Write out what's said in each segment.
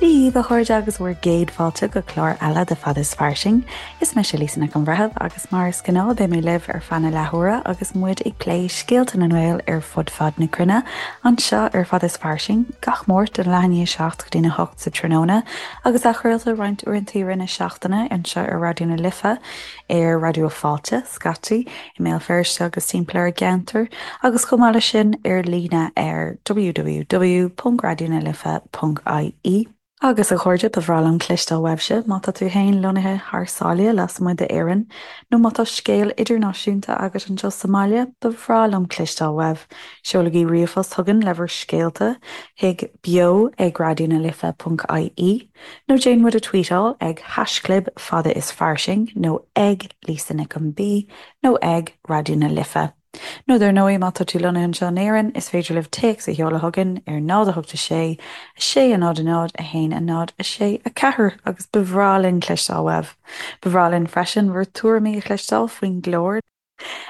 Dia daoibh a chairde agus bhur gcéad fáilte go clár eile de Fada is Fairsing. Is mise Lisa Nic an Bhreithimh agus mar is gnáth beidh mé libh ar feadh na leathuaire agus muid ag plé scéalta na nGael ar fud fad na cruinne anseo ar Fada is Fairsing gach Máirt ón leath i ndiaidh 7 go dtí a 8 sa tráthnóna agus athchraolta roinnt uaireanta i rith na seachtaine anseo ar Raidió na Life ar Raidió Fáilte, scaití, i mBéal Feirste agus timpeall ar an gceantar agus chomh maith leis sin ar líne ar www.raidionalife.ie. Agus a chairde, ba bhreá liom cloisteáil uaibhse má tá tú féin lonnaithe thar sáile lasmuigh d'Éirinn nó má tá scéal idirnáisiúnta agat anseo sa mbaile, ba bhreá liom cloisteáil uaibh. Seolaigí ríomhphost chugainn le bhur scéalta chuig beo ag raidionalife.ie nó déan muid a tweetáil ag haischlib fada is fairsing nó ag Lisa Nic an B nó ag Raidió na Life. Nó dar ndóigh, má tá tú lonnaithe anseo in Éirinn, is féidir libh téacs a sheoladh chugainn ar 0 8 6 6 0 0 1 0 6 4 agus ba bhreá linn cloisteáil uaibh. Ba bhreá linn freisin bhur tuairimí a chloisteáil faoin gclár.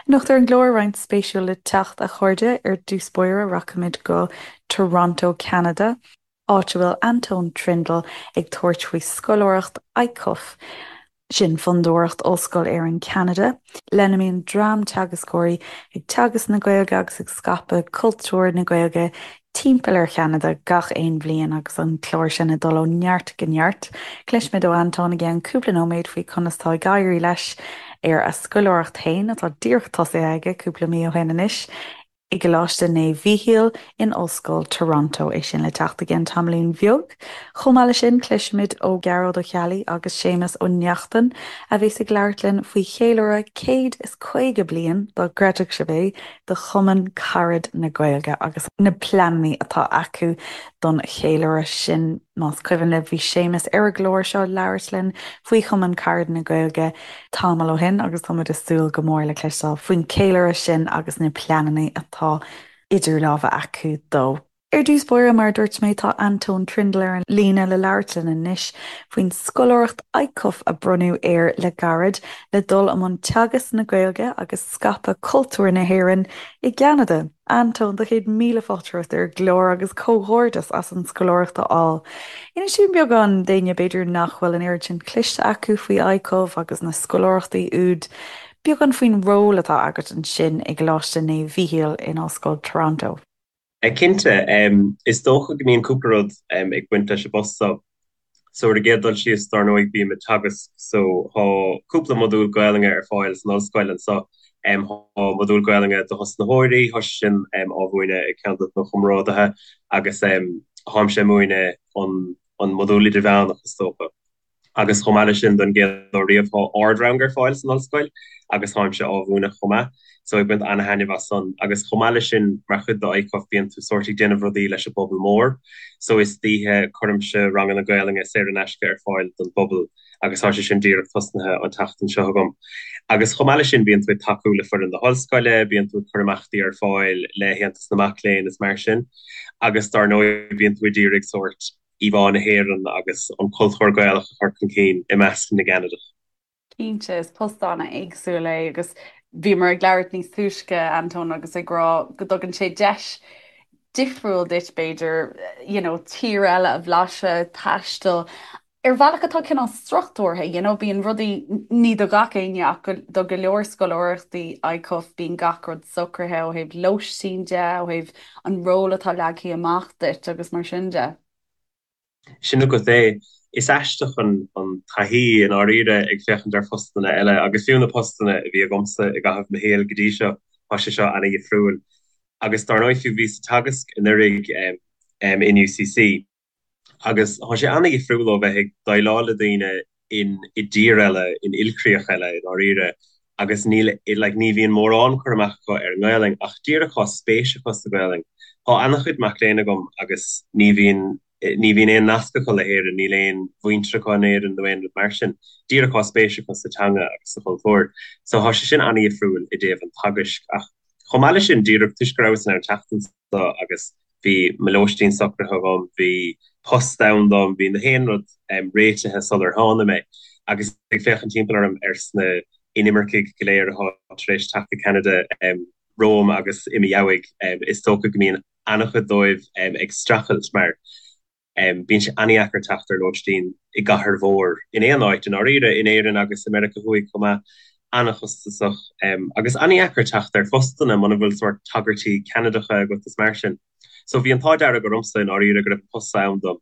Anocht ar an gclár, roinnt spéisiúil le teacht, a chairde. Ar dtús báire, rachaimid go Toronto, Ceanada. áit a bhfuil Antóin Trindle ag tabhairt faoi scoláireacht ICUF, sin Fondúireacht Ollscoil Éireann Ceanada, lena mbíonn dream teagascóirí ag teagasc na Gaeilge agus ag scaipeadh cultúr na Gaeilge timpeall ar Cheanada gach aon bhliain agus an clár sin ag dul ó neart go neart. Cloisfimid ó Antóin i gceann cúpla nóiméad faoi conas tá ag éirí leis ar a scoláireacht féin, atá díreach tosaithe aige cúpla mí ó shin anois. i gColáiste Naomh Mhíchíl in Ollscoil Toronto, é sin le teacht i gceann tamaillín bheag. Chomh maith leis sin, cloisfimid ó Ghearóid Ó Ceallaigh agus Séamus Ó Neachtain, a bheas ag labhairt linn faoi cheiliúradh 150 bliain, dá gcreidfeadh sibh é, de Chumann Carad na Gaeilge agus na pleananna atá acu don cheiliúradh sin. Más cuimhin libh, bhí Séamus ar an gclár seo ag labhairt linn faoi Chumann Carad na Gaeilge tamall ó shin agus tá muid ag súil go mór le cloisteáil faoin cheiliúradh sin agus na pleananna atá idir lámha acu dó. Ar dtús báire, mar a dúirt mé, tá Antóin Trindle ar an líne le labhairt linn anois faoin scoláireacht ICUF a bronnadh air le gairid le dul i mbun teagasc na Gaeilge agus scaipeadh cultúr na hÉireann i gCeanada. Antóin, do chéad míle fáilte romhat ar an gclár agus comhghairdeas as an scoláireacht a fháil. Inis dúinn beagán d'éinne b'fhéidir nach bhfuil an oiread sin cloiste acu faoi ICUF agus na scoláireachtaí úd, beagán faoin ról atá agat ansin i gColáiste Naomh Mhíchíl in Ollscoil Toronto. Cinnte, is dócha go mbíonn cúpla rud ag baint leis an bpost seo. So ar an gcéad dul síos, dár ndóigh, bím ag teagasc so thá cúpla modúl Gaelainne ar fáil san ollscoil anso. Thá modúl Gaelainne do thosnaitheoirí, thá sé sin á mhúineadh ag ceann de mo chomrádaithe agus tháimse ag múineadh an modúl idirmheánach is dócha. Agus chomh maith leis sin, don gcéad uair riamh, thá ard-rang ar fáil san ollscoil agus tháimse á mhúineadh chomh maith. So ag baint ana-thaitneamh as san. Agus chomh maith leis sin, mar chuid de ICUF, bíonn tú sórt ag déanamh rudaí leis an bpobal mór. So istoíche, cuirimse ranganna Gaelainne saor in aisce ar fáil don bpobal agus tá sé sin díreach tosnaithe an tseachtain seo agam. Agus chomh maith leis sin, bíonn tú ag tacú le foireann na hollscoile, bíonn tú ag cur imeachtaí ar fáil le hAontas na Mac Léinn is mar sin. Agus dár ndóigh, bíonn tú ag iarraidh sórt íomhá na hÉireann agus an cultúr Gaelach a chur chun cinn i measc na gCeanadach. Cinnte, is post an-éagsúil é agus bhíomar ag labhairt níos túisce, Antóin, agus ag rá go dtugann sé deis difriúil duit, b'fhéidir, you know, tír eile a bhlaiseadh, taisteal, ar bhealach atá cineál struchtúrtha, you know, bíonn rudaí, ní do gach éinne ach do go leor scoláireachtaí ICUF, bíonn gach rud socraithe ó thaobh lóistín de, ó thaobh an ról atá leagtha amach duit agus mar sin de. Sin agat é. Is aisteach an taithí i ndáiríre ag féachaint ar phostanna eile agus fiú na postanna a bhí agamsa i gcaitheamh mo shaoil go dtí seo, tá sé seo ana-dhifriúil. Agus dár ndóigh fiú bhíos ag teagasc anuraidh in UCC agus tá sé ana-dhifriúil ó bheith ag déileáil le daoine in i dtír eile, in ilchríoch eile i ndáiríre agus níl like ní bhíonn mórán cur amach acu ar an nGaelainn ach díreach tá spéis acu sa Ghaelainn. Tá ana-chuid mac léinn agam agus ní bhíonn ní bhíonn aon nasc acu le hÉirinn, níl aon mhuintir acu in Éirinn nó aon rud mar sin, díreach tá spéis acu sa teanga agus sa chultúr. So tá sé sin ana-dhifriúil i dtaobh an teagaisc ach chomh maith leis sin díreach toisc go rabhas in ann teacht anso agus bhí mo lóistín socraithe agam, bhí post ann dom, bhí na haon rud réitithe sular tháinig mé. Agus ag féachaint timpeall orm ar sna inimircigh go léir atá tar éis teacht go Ceanada romham agus i mo dheabhaidh, is dócha go mbíonn an-chuid dóibh ag streachailt mar. Bíonn sé an-dheacair teacht ar lóistín i gcathair mhór, in aon áit, i ndáiríre, in Éirinn agus i Meiriceá Thuaidh chomh maith. An-chostasach agus an-dheacair teacht ar phostanna muna bhfuil sórt tagairtí Ceanadacha agat is mar sin. So bhí an t-ádh dearg ormsa i ndáiríre go raibh an post ann dom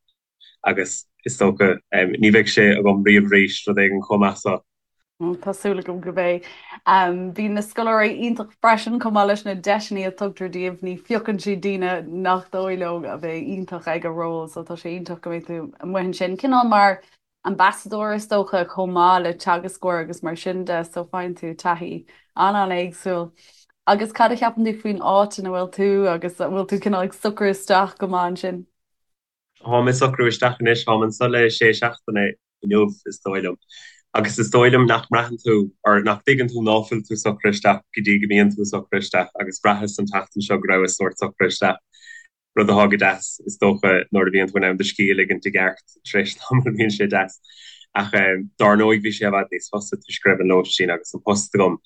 agus is dócha ní bheidh sé agam riamh arís, rud éigin chomh maith so. Tá súil agam go mbeidh. Bíonn na scoláirí iontach freisin chomh maith leis na deiseanna a tugtar díobh, ní phiocann siad daoine nach dóigh leo a bheidh iontach ag an ról so tá sé iontach go mbeidh tú amuigh ansin. Cineál mar ambassadóir is dócha chomh maith le teagascóir agus mar sin de so faigheann tú taithí an-an-éagsúil. Agus cad a cheapann tú faoin áit ina bhfuil tú agus an bhfuil tú cineál ag socrú isteach go maith ansin? Táim ag socrú isteach anois, táim anseo le sé seachtaine inniu, is dóigh liom. Agus is dóigh liom nach mbraitheann tú, or nach dtuigeann tú ná fuil tú socraithe isteach go dtí go mbíonn tú socraithe isteach agus bhraitheas an tseachtain seo go rabhas sórt socraithe isteach, rud atá go deas, is dócha, nuair a bhíonn tú in ann do scíth a ligint i gceart tar éis tamaill bíonn sé deas. Ach dár ndóigh bhí sé i bhfad níos fusa toisc go raibh an lóistín agus an post agam.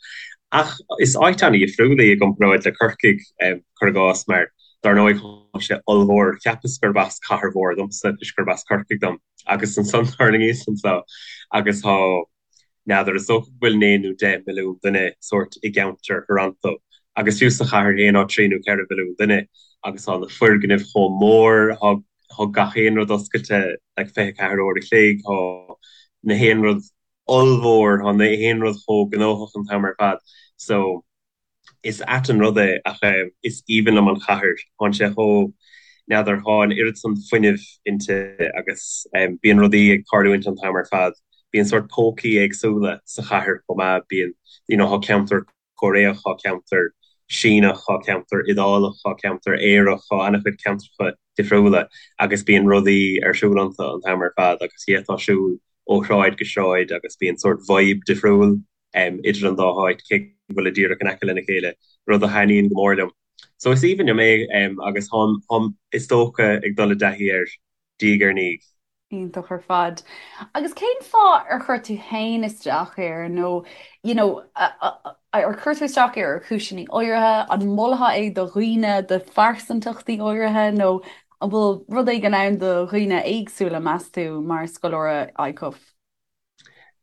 Ach is áit an-dhifriúil í i gcomparáid le Corcaigh, cuir i gcás, mar Dar ndóigh, tá sé ollmhór. Cheapas gurb as cathair mhór domsa toisc gurb as Corcaigh dom. Agus ansan thuirlingíos anso agus tá, n'fheadar, is dócha go bhfuil 9 nó 10 milliún duine sórt i gceantar Thoronto. Agus fiú sa chathair féin tá 3 nó 4 mhilliún duine agus tá na foirgnimh chomh mór, tá, tá gach aon rud oscailte like 24 uair a chloig, tá na haon rud ollmhór, tá na haon rud chomh gnóthach an t-am ar fad. So. Is ait an rud é ach is aoibhinn liom an chathair. Tánn sé chomh, n'fheadar, tá an oiread san fuinnimh inti agus bíonn rudaí ag tarlúint an t-am ar fad. Bíonn sórt pócaí éagsúla sa chathair chomh maith, bíonn, you know, tá ceantar Cóiréach, tá ceantar Síneach, tá ceantar Iodálach, tá ceantar Aerach, tá an-chuid ceantracha difriúla agus bíonn rudaí ar siúl iontu an t-am ar fad agus d'fhéadfá siúl ó shráid go sráid agus bíonn sórt vibe difriúil idir an dá háit, cé go bhfuilid díreach in aice lena chéile, rud a thaitníonn go mór liom. So is aoibhinn liom é agus táim, táim, is dócha, ag dul i dtaithí air diaidh ar ndiaidh. Iontach ar fad. Agus cén fáth ar chuir tú féin isteach air nó, you know, ar chuir tú isteach air ar chúiseanna áirithe, an molfá é do dhaoine, do phearsantachtaí áirithe nó an bhfuil rud éigin ann do dhaoine éagsúla, meas tú, mar scoláire ICUF?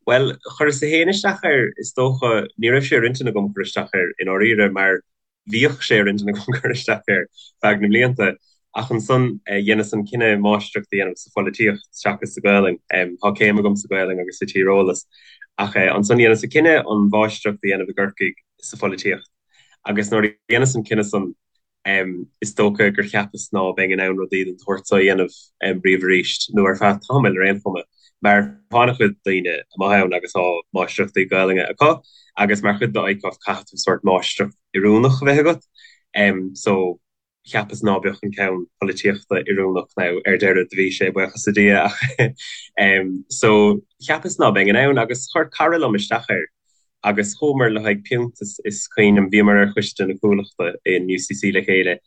Bhuel, chuireas-sa féin isteach air, is dócha. Ní raibh sé ar intinn agam cur isteach air, i ndáiríre, mar bhíodh sé ar intinn agam cur isteach air feadh na mblianta. Ach ansan, dheineas an cinneadh máistreacht a dhéanamh sa pholaitíocht seachas sa Ghaelainn. Tá céim agam sa Ghaelainn agus sa tíreolas. Ach ansan dheineas an cinneadh an mháistreacht a dhéanamh i gCorcaigh sa pholaitíocht. Agus nuair a dheineas an cinneadh san, Is dócha gur cheapas ná beinn in ann rudaí den tsórt so a dhéanamh riamh arís, nó ar feadh tamaill ar aon chuma, mar tá an-chuid daoine amuigh ann agus tá máistreachtaí Gaelainne acu, agus mar chuid de ICUF caithfidh tú sórt máistreacht oiriúnach a bheith agat. So, cheapas ná beadh an ceann polaitíochta oiriúnach, now ar deireadh do bhí sé, buíochas le Dia, ach so cheapas ná beinn in ann, agus chuir cara liom isteach air. Agus chuamar le haghaidh piúnt is cuimhin liom, bhíomar ar choiste na Cuallachta in UCC le chéile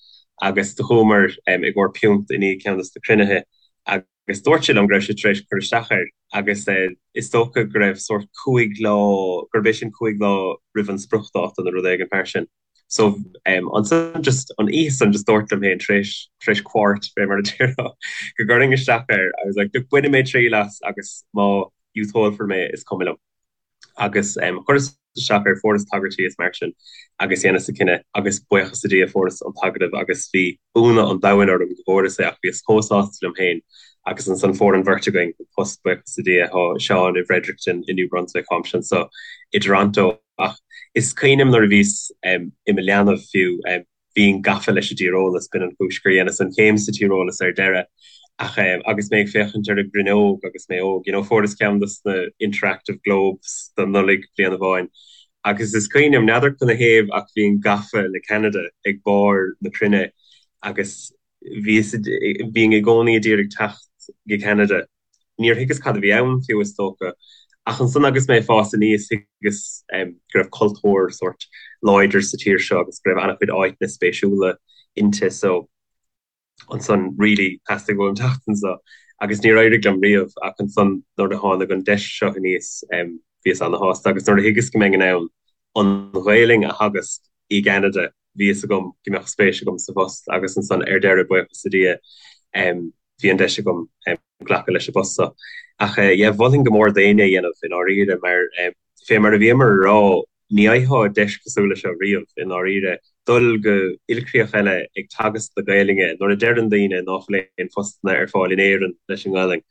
agus do chuamar i gcomhair piúnt i ndiaidh ceann de na cruinnithe agus dúirt sé liom go raibh sé tar éis cur isteach air agus is dócha go raibh sórt cúig lá, gurb é sin cúig lá roimh an spriocdháta nó rud éigin mar sin. So ansan just an oíche san just dúrt liom féin tar éis tar éis quart fé mar a déarfá go gcuirfinn isteach air. I was like look bainfidh mé triail as agus má dhiúltófar mé is cuma liom. Agus chuireas isteach air, fuaireas tagairtí is mar sin agus dheineas an cinneadh agus buíochas le Dia fuaireas an t-agallamh agus bhí ionadh an domhain orm go bhfuaireas é ach bhíos chomh sásta liom féin agus ansan fuair an bheirt againn an post buíochas le Dia. Tá Seán i bhFredericton i New Brunswick, táimse anso i dToronto ach is cuimhin liom nuair a bhíos i mo leanbh fiú, Bhínn gafa leis an dtíreolas, b'in an chúis gur dheineas an chéim sa tíreolas ar deireadh. Ach agus mé ag féachaint ar an gcruinneog agus mé óg, you know, fuaireas ceann dos na interactive globes don Nollaig bliain amháin agus is cuimhin liom, n'fheadar canathaobh ach bhínn gafa le Ceanada ag barr na cruinne agus bhíos, bhínn i gcónaí a d'iarraidh teacht go Ceanada. Níor thuigeas cad a bhí ann fiú is dócha. Ach ansan agus mé ag fás aníos thuigeas go raibh cultúr sórt láidir sa tír seo agus go raibh an-chuid áiteanna spéisiúla inti so ansan really theastaigh uaim teacht anso agus níor éirigh liom riamh ach ansan nuair a tháinig an deis seo aníos bhíos ana-shásta agus nuair a thuigeas go mbeinn in ann an Ghaelainn a theagasc i gCeanada bhí fhios agam go mbeadh spéis agam sa phost agus ansan ar deireadh buíochas le Dia. Bhí an deis agam glacadh leis an bpost seo. Ach yeah, mholfainn go mór d'éinne é a dhéanamh i ndáiríre mar fé mar a bhíomar a rá, ní fhaighfeá deis cosúil leis seo riamh i ndáiríre, dul go ilchríoch eile ag teagasc na Gaelainne nuair a deireann daoine ná fuil aon phostanna ar fáil in Éirinn leis an nGaelainn.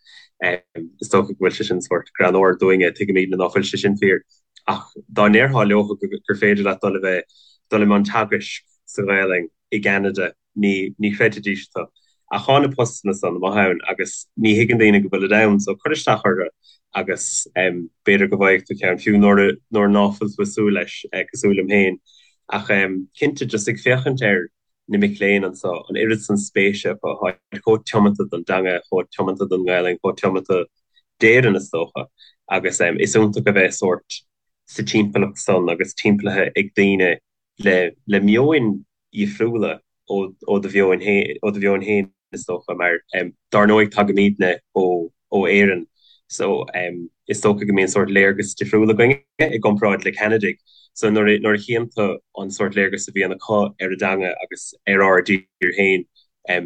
Is dócha go bhfuil sé sin sórt greannmhar dúinne, tuigimidne ná fuil sé sin fíor ach dá ndéarfá leo gur féidir leat dul a bheith, dul i mbun teagaisc sa Ghaelainn i gCeanada, ní, ní chreidfidís tú. Ach thá na postanna san amuigh ann agus ní thuigeann daoine go bhfuilid ann, so cuir isteach orthu agus b'fhéidir go bhfaighidh tú ceann, fiú nuair a, nuair ná fuil tú ag súil leis, cosúil liom féin. Ach cinnte, just ag féachaint ar na mic léinn anso, an oiread san spéise acu, tháid chomh tiomanta don dteanga, chomh tiomanta don nGaelainn, chomh tiomanta d'Éirinn is dócha, agus is iontach a bheith sórt sa timpeallacht san agus timpeallaithe ag daoine le, le meoin dhifriúla ó do mheon féin is dócha, mar dár ndóigh tagaimidne ó Éirinn so is dócha go mbíonn sórt léargas difriúil againne i gcomparáid le Ceanadaigh. So nuair a chíonn tú an sórt léargas a bhíonn acu ar an dteanga agus ar ár dtír féin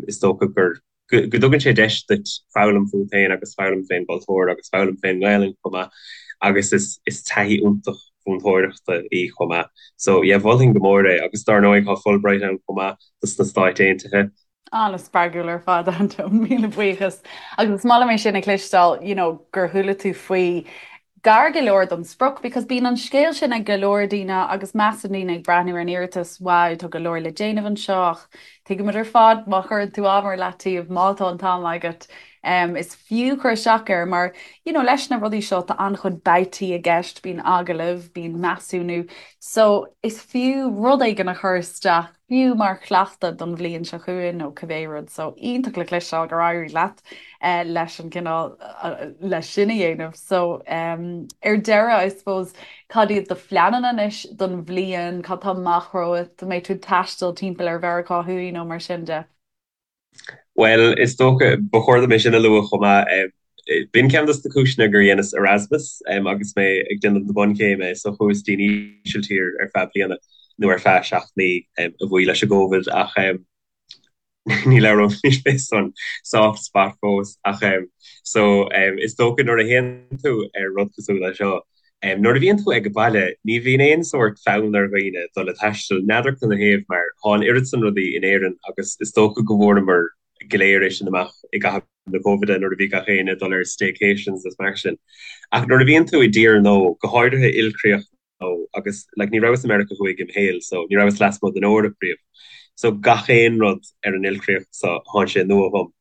is dócha gur go dtugann sé deis duit foghlaim fút féin agus foghlaim fén gcultúr agus foghlaim fén nGaelainn chomh maith agus is is taithí iontach mhúinteoireachta í chomh maith. So yeah, mholfainn go mór é agus dár ndóigh tá Fulbright ann chomh maith dos na Stáit Aontaithe. An-spreagúil ar fad, Antóin, míle buíochas. Agus is maith liom é sin a chloisteáil, you know, gur chuala tú faoi gar go leor don sprioc because bíonn an scéal sin ag go leor daoine agus measann daoine ag breathnú ar an iarratas, wow, tá go leor le déanamh anseo ach tuigimid ar fad má chuireann tú am ar leataobh, má tá an t-am agat, um, is fiú cur isteach air mar you know, leis na rudaí seo tá an-chuid babhtaí i gceist, bíonn agallaimh, bíonn measúnú, so is fiú rud éigin a chur isteach fiú mar chleachtadh don bhliain seo chugainn nó cibé rud. So iontach le cloisteáil gur éirigh leat leis an gcineál leis sin a dhéanamh. So ar deireadh, I suppose, cad iad do phleananna anois don bhliain, cad tá amach romhat, an mbeidh tú ag taisteal timpeall ar Mheiriceá Thuaidh nó mar sin de? Bhuel, is dócha, ba chóir dom é sin a lua chomh maith. B'in ceann dos na cúiseanna gur dheineas Erasmus agus mé ag déanamh na bunchéime, so chuas dtí'n Ísiltír ar feadh bliana, nó ar feadh 7 mí, a bhuí leis an gCovid, ach ní labhróimis fé san soft spot fós, ach so is dócha nuair a théann tú ar rud cosúil le seo, Nuair a bhíonn tú ag baile, ní bhíonn aon sórt fonn ar dhaoine dul ag taisteal, n'fheadar canathaobh, mar thá an oiread san rudaí in Éirinn agus is dócha go bhfuaireamar go léir é sin amach i gcaitheamh na Covide nuair a bhí gach éinne ag dul ar staycations is mar sin. Ach nuair a bhíonn tú i dtír nua, go háirithe ilchríoch nua, agus like ní rabhas i Meiriceá Thuaidh im shaol so ní rabhas lasmuigh den Eoraip riamh, so gach aon rud ar an ilchríoch so thánn sé nua dhom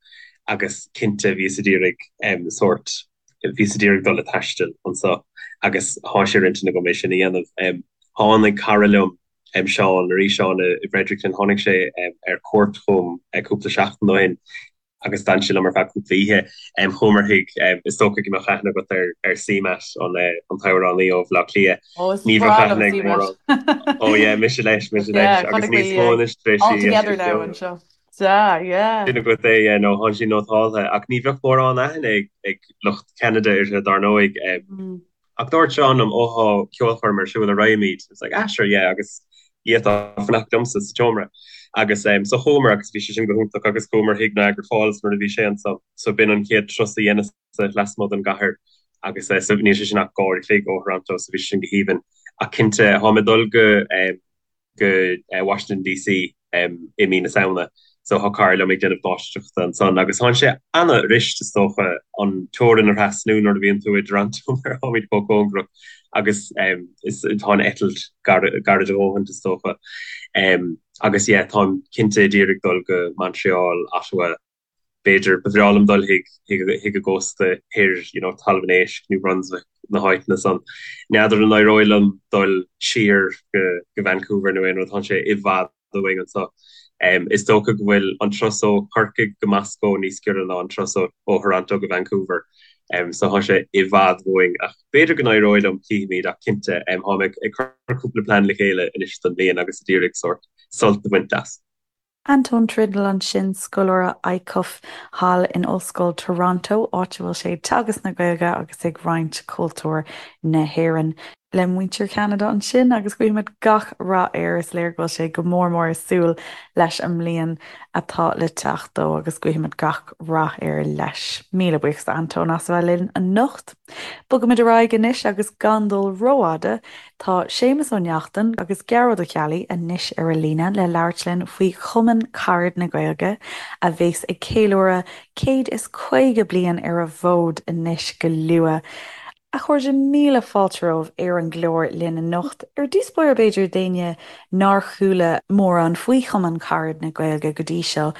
agus cinnte bhíos ag iarraidh sórt Bhíos ag iarraidh dul ag taisteal anso agus thá sé ar intinn agam é sin a dhéanamh. Tháinig cara liom, Seán, arís Seán i bhFredericton, tháinig sé ar cuairt chugam cúpla seachtain ó shin agus d'fhan sé liom ar feadh cúpla oíche. Chuamar chuig, is dócha go mbeadh aithne agat ar C-Matt, an t-amhránaí ó Bhaile Átha Cliath. Ó, is breá liom C-Matt. Ó yeah, mise leis, mise leis agus níos mó anois tar éis All together now anseo. Sea, yeah. Sin agat é, yeah, nó thánn sí nótáltha, ach ní bheadh mórán aithne ag lucht Cheanada uirthi, dar ndóigh. Ach dúirt Seán liom, ó thá ceolchoirm ar siúl, an raghaimid? I was like, ah, sure, yeah, agus d'fhéadfá fanacht liomsa sa tseomra. Agus so chuamar agus bhí sé sin go hiontach agus chuamar chuig Niagara Falls nuair a bhí sé anso. So b'in an chéad turas a dheineas-sa lasmuigh den gcathair agus so níl sé sin ach dhá uair a chloig ó Thoronto so bhí sé sin go haoibhinn. Ach cinnte, tháim ag dul go. go Washington DC i mí na Samhna so thá cara liom ag déanamh máistreachta ansan agus thánn sé ana-fhuirist is dócha an teorainn a thrasnú nuair a bhíonn tú i dToronto mar tháimid chomh cóngarach agus is tá an eitilt gairid a dhóthaint is dócha agus yeah táim cinnte ag iarraidh dul go Montreal, Ottawa b'fhéidir, ba bhreá liom dul chuig chuig an gcósta thoir, you know, Talamh an Éisc, New Brunswick, na háiteanna san. N'fheadar an éireoidh liom dul siar go go Vancouver nó aon rud, tánn sé i bhfad uainn anso. Is dócha go bhfuil an turas ó Chorcaigh go Moscó níos giorra ná an turas ó ó Thoronto go Vancouver. So thá sé i bhfad uainn ach b'fhéidir go n-éireoidh liom, cífimid ach cinnte, tháim ag ag cur cúpla plean le chéile anois don bhliain agus ag iarraidh sórt sult a bhaint as. Antóin Trindle ansin, scoláire ICUF thall in Ollscoil Toronto, áit a bhfuil sé ag teagasc na Gaeilge agus ag roinnt cultúr na hÉireann. Le muintir Cheanada ansin agus guímid gach rath air. Is léir go bhfuil sé go mór mór ag súil leis an mbliain atá le teacht dó agus guímid gach rath air leis. Míle buíochas d'Antóin as a bheith linn anocht. Bogaimid ar aghaidh anois agus gan dul rófhada, tá Séamus Ó Neachtain agus Gearóid Ó Ceallaigh anois ar an líne le labhairt linn faoi Chumann Carad na Gaeilge a bheas ag ceiliúradh 150 bliain ar an bhfód anois go luath. A chairde, míle fáilte romhaibh ar an gclár linn anocht. Ar dtús báire b'fhéidir d'éinne nár chuala mórán faoi Chumann Carad na Gaeilge go dtí seo,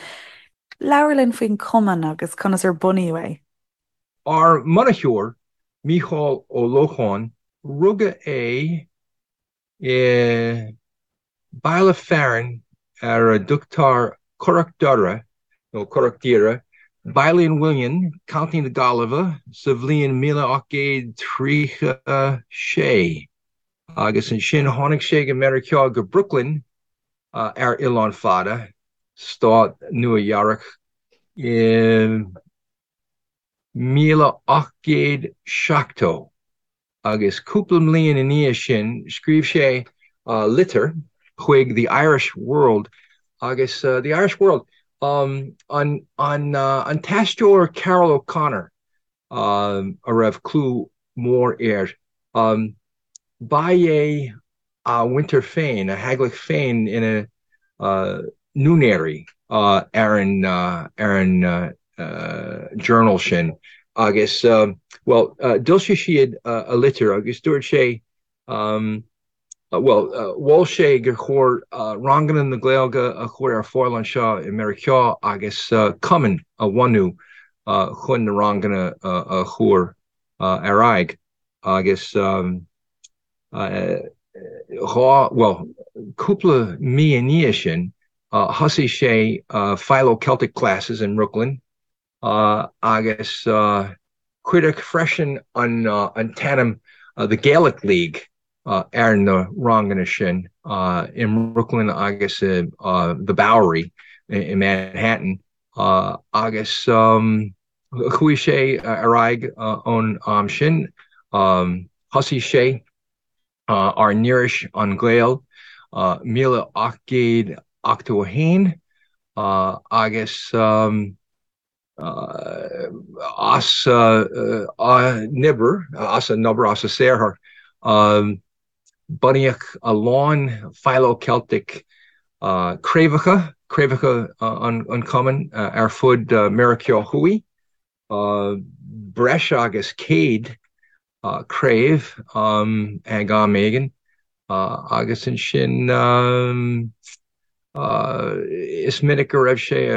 labhair linn faoin chumann agus conas ar bunaíodh é. Ár mbunaitheoir, Mícheál Ó Lócháin, rugadh é i mbaile fearainn ar a dtugtar Currach Doire nó Currach Doire, Baile an Mhuilinn, Contae na Gaillimhe, sa bhliain 1836 agus ansin tháinig sé go Meiriceá go Brooklyn ar Oileán Fada, Stát Nua Eabhrac i 1870. agus cúpla mbliain i ndiaidh sin scríobh sé litir chuig The Irish World agus The Irish World an an t-aisteoir Carroll O'Connor a raibh clú mór air ba é a mhuintir féin, a theaghlach féin ina n-úinéirí ar an ar an journal sin agus, bhuel, d'fhoilsigh siad a litir agus dúirt sé, bhuel, mhol sé gur chóir ranganna na Gaeilge a chur ar fáil anseo i Meiriceá agus cumann a bhunú chun na ranganna a chur ar aghaidh agus. 2, bhuel, cúpla mí i ndiaidh sin, thosaigh sé Philo-Celtic classes in mBrooklyn agus cuireadh freisin an t-ainm The Gaelic League ar na ranganna sin i mBrooklyn agus i The Bowery i Manhattan agus Chuaigh sé ar aghaidh ón am sin. Thosaigh sé ár n-iris An Gael 1881 agus as a n-obair, as a n-obair, as a saothar, bunaíodh a lán Philo-Celtic craobhacha, craobhacha an chumainn ar fud Meiriceá Thuaidh, breis agus 100 craobh ag am éigin, agus ansin is minic go raibh sé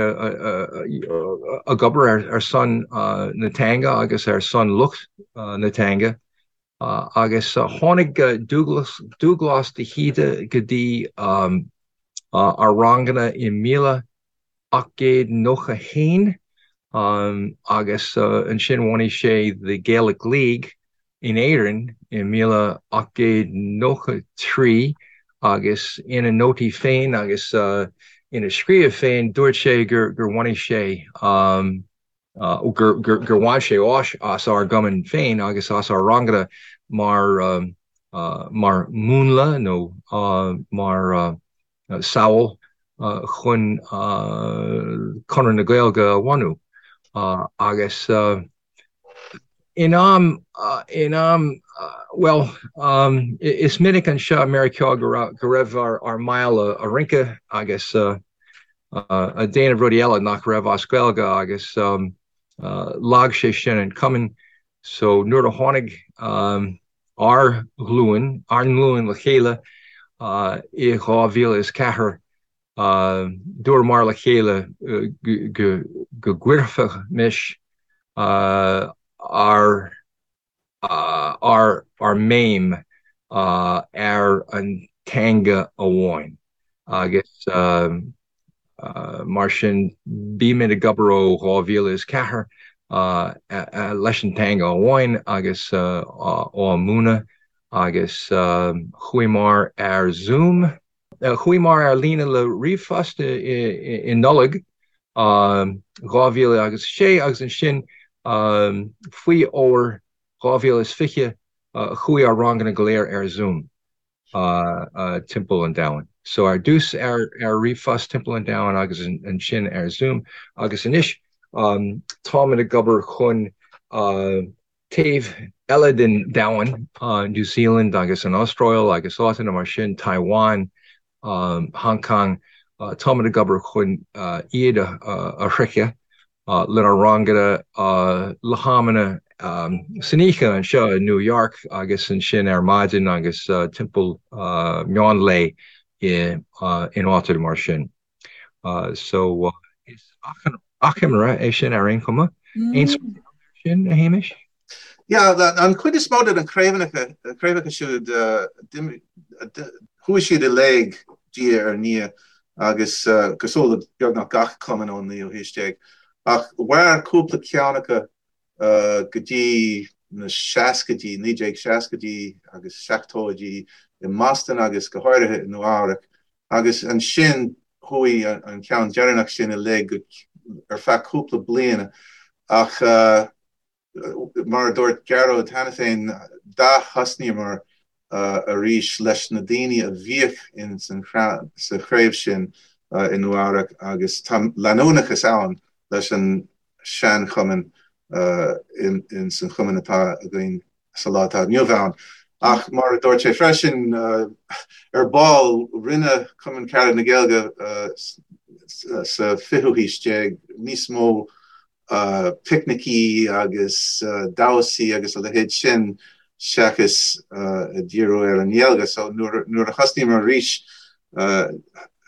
ag obair ar son na teanga agus ar son lucht na teanga. Agus tháinig Dúghlás de hÍde go dtí ár ranganna i 1891 agus ansin bhunaigh sé The Gaelic League in Éirinn i 1893 agus ina nótaí féin agus ina scríobh féin dúirt sé gur bhunaigh sé gur bhain sé áis as ár gcumann féin agus as ár ranganna mar mar mhúnla nó mar samhail chun Conradh na Gaeilge a bhunú. Agus in am, in am, bhuel, is minic anseo i Meiriceá go raibh ár mbaill ag rince agus ag déanamh rudaí eile nach raibh as Gaeilge agus lag sé sin an cumann so nuair a tháinig ár nglúin, ár nglúin le chéile i 2004 dúramar le chéile go gcuirfimis ár ár mbéim ar an teanga amháin agus mar sin bímid ag obair ó 2004 leis an teanga amháin agus á múineadh agus chuamar ar Zoom. Chuamar ar líne le ríomhphost i Nollaig 2006 agus ansin faoi fhómhar 2020. Chuaigh ár ranganna go léir ar Zoom timpeall an domhain. So ar dtús ar ríomhphost timpeall an domhain agus ansin ar Zoom agus anois táimid ag obair chun taobh eile den domhan, New Zealand agus an Astráil agus áiteanna mar sin, Taiwan, Hong Kong, táimid ag obair chun iad a shroicheadh lenár ranganna le hamanna san oíche anseo i New York agus ansin ar maidin agus timpeall meán lae in áiteanna mar sin. So is achoimre é sin ar aon chuma. Aon smaointe air sin, a Shéamais? Yeah, an chuid is mó de na craobhanna, craobhacha siúd, chuaigh siad i léig diaidh ar ndiaidh agus cosúil le beagnach gach cumann ón naoú haois déag. Ach mhair cúpla ceann acu go dtí na seascaidí, 1960idí agus seachtóidí i mBoston agus go háirithe i Nua Eabhrac. Agus ansin chuaigh an ceann deireanach sin i léig ar feadh cúpla bliana. Ach mar a dúirt Gearóid cheana féin, d'ath-thosnaíomar arís leis na daoine a bhíodh sa chraobh sin i Nua Eabhrac agus tá leanúnachas ann leis an sean-chumann ins an chumann atá againn sa lá atá inniu ann. Ach mar a dúirt sé freisin, ar ball, rinne Cumann Carad na Gaeilge sa fichiú haois déag níos mó picnicí agus damhsaí agus a leithéid sin seachas díriú ar an nGaeilge. So nuair a thosnaíomar arís,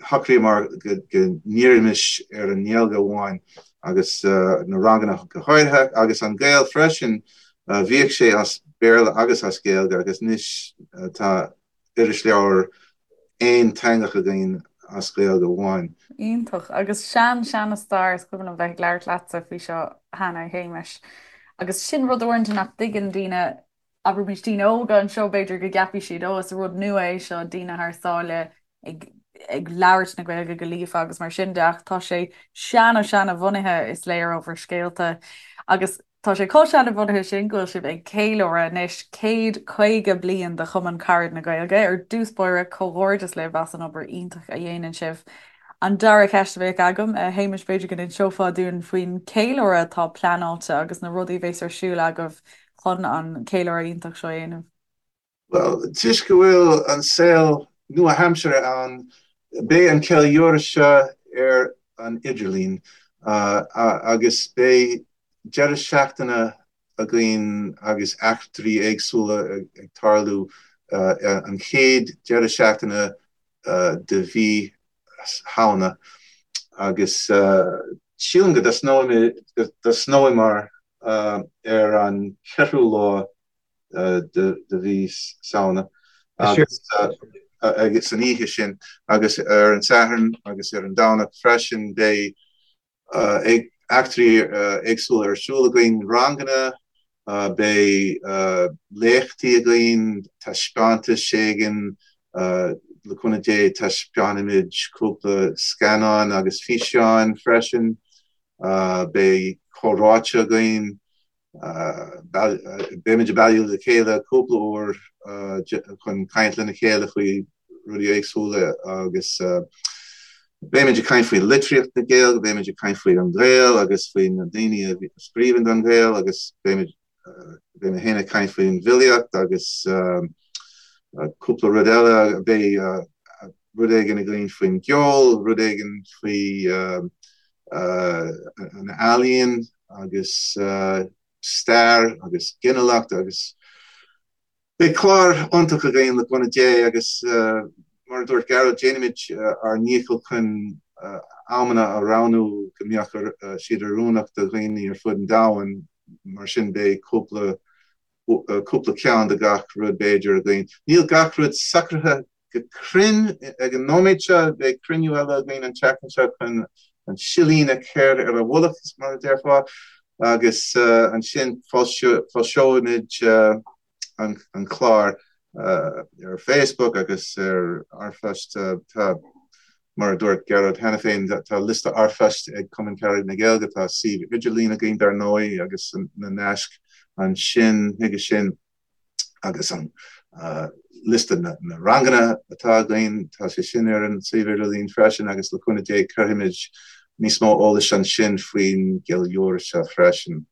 shocraíomar go ndíreoimis ar an nGaeilge amháin agus na ranganna go háirithe agus An Gael freisin, bhíodh sé as Béarla agus as Gaeilge agus anois tá irisleabhar aonteangach againn as Gaeilge amháin. Iontach. Agus sean seana stair, is cuimhin liom bheith ag labhairt leatsa faoi seo cheana, a Shéamais. Agus sin rud uaireanta nach dtuigeann daoine, abraimis daoine óga anseo, b'fhéidir go gceapfaidh siad, ó is rud nua é seo, daoine thar sáile ag ag labhairt na Gaeilge go líofa agus mar sin de, ach tá sé seana seana bhunaithe is léir ó bhur scéalta. Agus Tá sé chomh seanabhunaithe sin go bhfuil sibh ag ceiliúradh anois 150 bliain de Chumann Carad na Gaeilge. Ar dtús báire, comhghairdeas libh as an obair iontach a dhéanann sibh. An dara ceist a bheadh agam, a Shéamais, b'fhéidir go n-inseofá dúinn faoin cheiliúradh atá pleanáilte agus na rudaí a bheas ar siúl agaibh chun an ceiliúradh iontach seo a dhéanamh. Bhuel, toisc go bhfuil an saol nua-aimseartha ann, beidh an ceiliúradh seo ar an idirlíon agus beidh deireadh seachtaine againn agus eachtraí éagsúla ag tarlú an chéad deireadh seachtaine de mhí Shamhna agus sílim go dtosnóimar ar an cheathrú lá de mhí Samhna agus san oíche sin agus ar an Satharn agus ar an Domhnach freisin beidh eachtraí éagsúla ar siúl againn, ranganna, beidh léachtaí againn, taispeántais éigin, le cúnamh Dé taispeánfaimid cúpla scannán agus físeáin freisin, beidh comhráite againn. Beimid ag bailiú le chéile cúpla uair chun caint lena chéile faoi rudaí éagsúla agus beimid ag caint faoi litríocht na Gaeilge, beimid ag caint faoi An Gael agus faoi na daoine a scríobhann don Ghael agus beimid beidh mé féin ag caint faoin bhfilíocht agus cúpla rud eile, beidh rud éigin againn faoin gceol, rud éigin faoi an ealaíon agus stair agus ginealach agus beidh clár iontach againn le cúnamh Dé agus mar a dúirt Gearóid déanfaimid ár ndícheall chun amanna a roghnú go mbeadh siad oiriúnach do dhaoine ar fud an domhain mar sin beidh cúpla cúpla ceann de gach rud b'fhéidir againn. Níl gach rud socraithe go cruinn ag an nóiméad seo, beidh cruinniú eile againn an tseachtain seo chun an silín a chur ar a mhullach, mar a déarfá, agus ansin foilseoimid an clár ar Facebook agus ar r-phost. Tá, mar a dúirt Gearóid cheana féin, tá liosta r-phoist ag Cumann Carad na Gaeilge, tá suíomh idirlín againn dar ndóigh agus na naisc ansin chuige sin. Agus an liosta na ranganna atá againn, tá sé sin ar an suíomh idirlín freisin agus le cúnamh Dé cuirfimid níos mó eolais ansin faoin gceiliúradh seo freisin.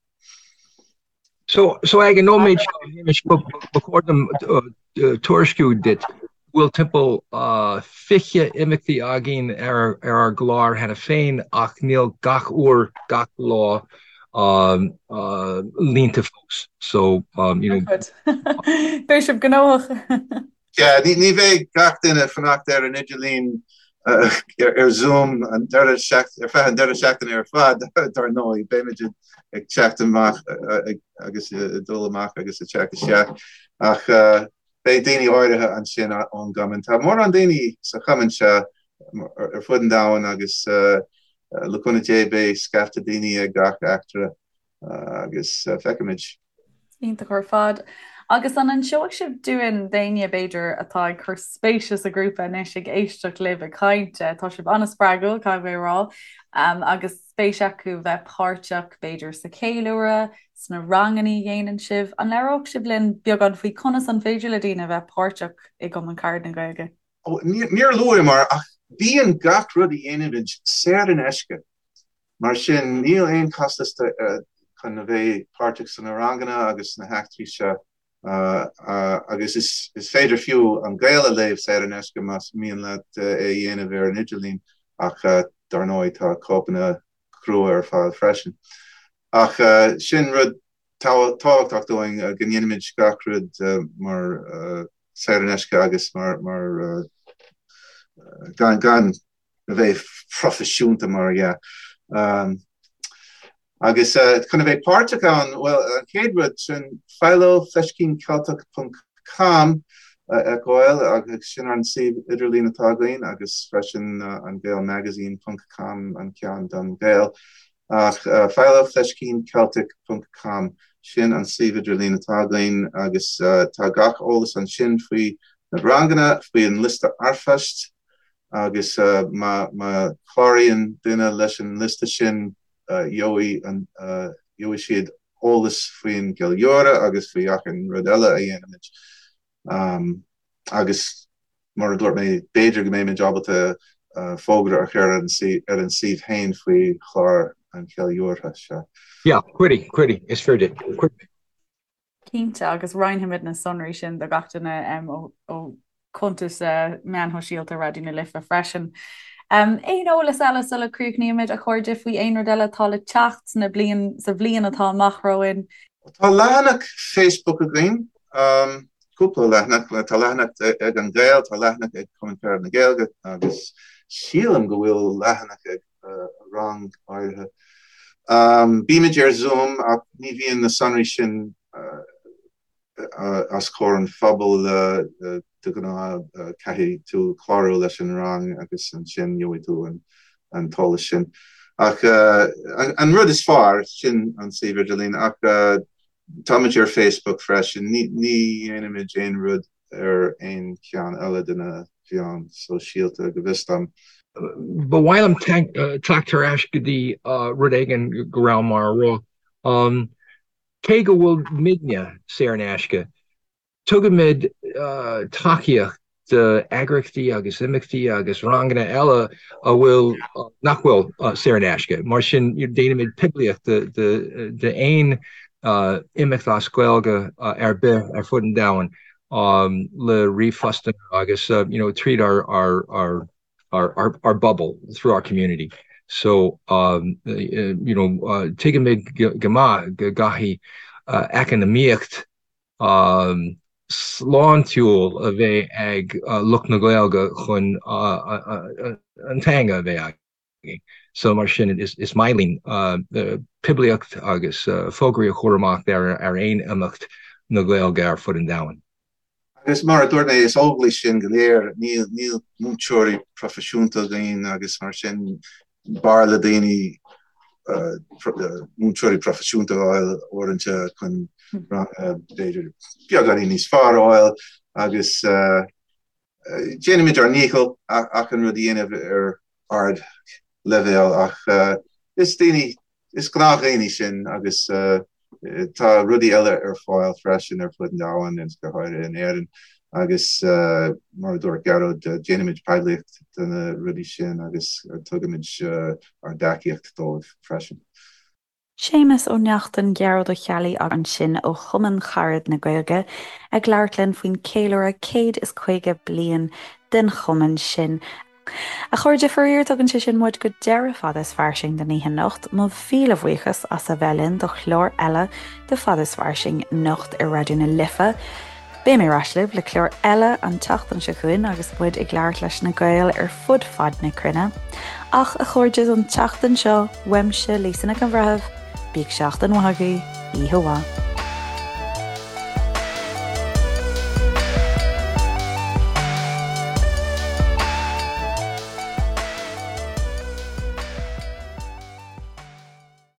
So, so ag an nóiméad seo, a Shéamais, ba chóir dom tuairisciú duit go bhfuil timpeall 20 imeachtaí againn ar ár gclár cheana féin ach níl gach uair, gach lá líonta fós. So, you know. Beidh sibh gnóthach. Yeah, ní bheidh gach duine ag fanacht ar an idirlíon ar Zoom an deireadh ar feadh an deireadh seachtaine ar fad, dar ndóigh. Beimid ag teacht amach agus ag dul amach agus ag teacht isteach. Ach beidh daoine áirithe ansin ón gcumann. Tá mórán daoine sa chumann seo ar fud an domhain agus le cúnamh Dé beidh scaifte daoine ag gach eachtra agus feicfimid. Iontach ar fad. Agus an inseoidh sibh dúinn, d'éinne, b'fhéidir, atá ag cur spéise sa ghrúpa anois, ag éisteacht libh ag caint, tá sibh an-spreagúil, caithfidh mé a rá, agus spéis acu bheith páirteach, b'fhéidir, sa cheiliúradh, sna ranganna a dhéanann sibh, an labhródh sibh linn beagán faoi conas an féidir le daoine bheith páirteach i gCumann Carad na Gaeilge? Níor luamar ach bíonn gach rud a dhéanaimid saor in aisce. Mar sin, níl aon costas chun a bheith páirteach sna ranganna agus sna heachtraí seo agus is féidir fiú An Gael a léamh saor in aisce más mian leat é a dhéanamh ar an idirlíon ach dar ndóigh tá cóipeanna crua ar fáil freisin. Ach sin rud tábhachtach dúinn go ndéanaimid gach rud mar saor in aisce agus mar gan gan a bheith proifisiúnta mar dhea. Agus chun a bheith páirteach ann, bhuel, an chéad rud sin Philo, fleiscíncheilteach ponc com a fheiceáil agus sin an suíomh idirlín atá againn agus freisin an Gael Magazine ponc com an ceann don Ghael. Ach Philo, fleiscíncheilteach ponc com, sin an suíomh idirlín atá againn agus tá gach eolas ansin faoi na ranganna, faoi an liosta r-phoist agus má chláraíonn duine leis an liosta sin gheobhaidh gheobhaidh siad eolas faoin gceiliúradh agus faoi achan rud eile a dhéanaimid. Agus mar a dúirt mé, b'fhéidir go mbeimid ábalta fógra a chur ar an suíomh féin faoi chlár an cheiliúrtha seo. Yeah, cuirfidh, cuirfidh, is fíor duit, cuirfidh. Cinnte, agus roinnfimid na sonraí sin do gach duine ó chuntas meáin shóisialta Raidió na Life freisin. Aon eolas eile sula críochnaímid, a chairde, faoi aon rud eile atá le teacht sna bliain, sa bhliain atá amach romhainn? Tá leathanach Facebook againn, cúpla leathanach, tá leathanach ag An Gael, tá leathanach ag Cumann Carad na Gaeilge agus sílim go bhfuil leathanach ag rang áirithe. Bímid ar Zoom ach ní bhíonn na sonraí sin os comhair an phobail de ghnáth, caithfidh tú clárú leis an rang agus ansin gheobhaidh tú an t-eolas sin. Ach an rud is fearr, sin an suíomh idirlín ach táimid ar Facebook freisin, ní dhéanaimid aon rud ar aon cheann eile de na mheáin sóisialta go bhfios dom. Ba mhaith liom teacht ar ais go dtí rud éigin go rabhamar a rá. Cé go bhfuil muidne saor in aisce, tugaimid tacaíocht d'eagraíochtaí agus imeachtaí agus ranganna eile a bhfuil, nach bhfuil saor in aisce. Mar sin, déanaimid poiblíocht d'aon imeacht as Gaeilge ar bith ar fud an domhain le ríomhphostanna agus you know tríd ár ár ár ár bpobal, through our community. So you know tuigimid go maith go gcaithfidh eacnamaíocht sláintiúil a bheith ag lucht na Gaeilge chun an teanga a bheith againn. So mar sin is maith linn poiblíocht agus fógraí a chur amach ar aon imeacht na Gaeilge ar fud an domhain. Agus mar a dúirt mé, is Óglaigh sinn go léir, níl múinteoirí proifisiúnta againn agus mar sin b'fhearr le daoine múinteoirí proifisiúnta a fháil uaireanta chun b'fhéidir beagáinín níos fearr a fháil agus déanaimid ár ndícheall achan rud a dhéanamh ar ardleibhéal ach is daoine, is gnáthdhaoine sinn agus. Tá rudaí eile ar fáil freisin ar fud an domhain agus go háirithe in Éirinn agus mar a dúirt Gearóid, déanaimid poiblíocht de na rudaí sin agus tugaimid ár dtacaíocht dóibh freisin. Séamus Ó Neachtain, Gearóid Ó Ceallaigh ansin ó Chumann Carad na Gaeilge ag labhairt linn faoin ceiliúradh 150 bliain den chumann sin. A chairde, faraor tugann sé sin muid go deireadh Fada is Fairsing don oíche anocht. Mo mhíle bhuíochas as a bheith linn do chlár eile de Fada is Fairsing anocht ar Raidió na Life. Beidh mé ar ais libh le clár eile an tseachtain seo chugainn agus muid ag labhairt leis na Gaeil ar fud fad na cruinne. Ach, a chairde, don tseachtain seo, uaimse, Lisa Nic an Bhreithimh, bíodh seachtain mhaith agaibh, oíche mhaith.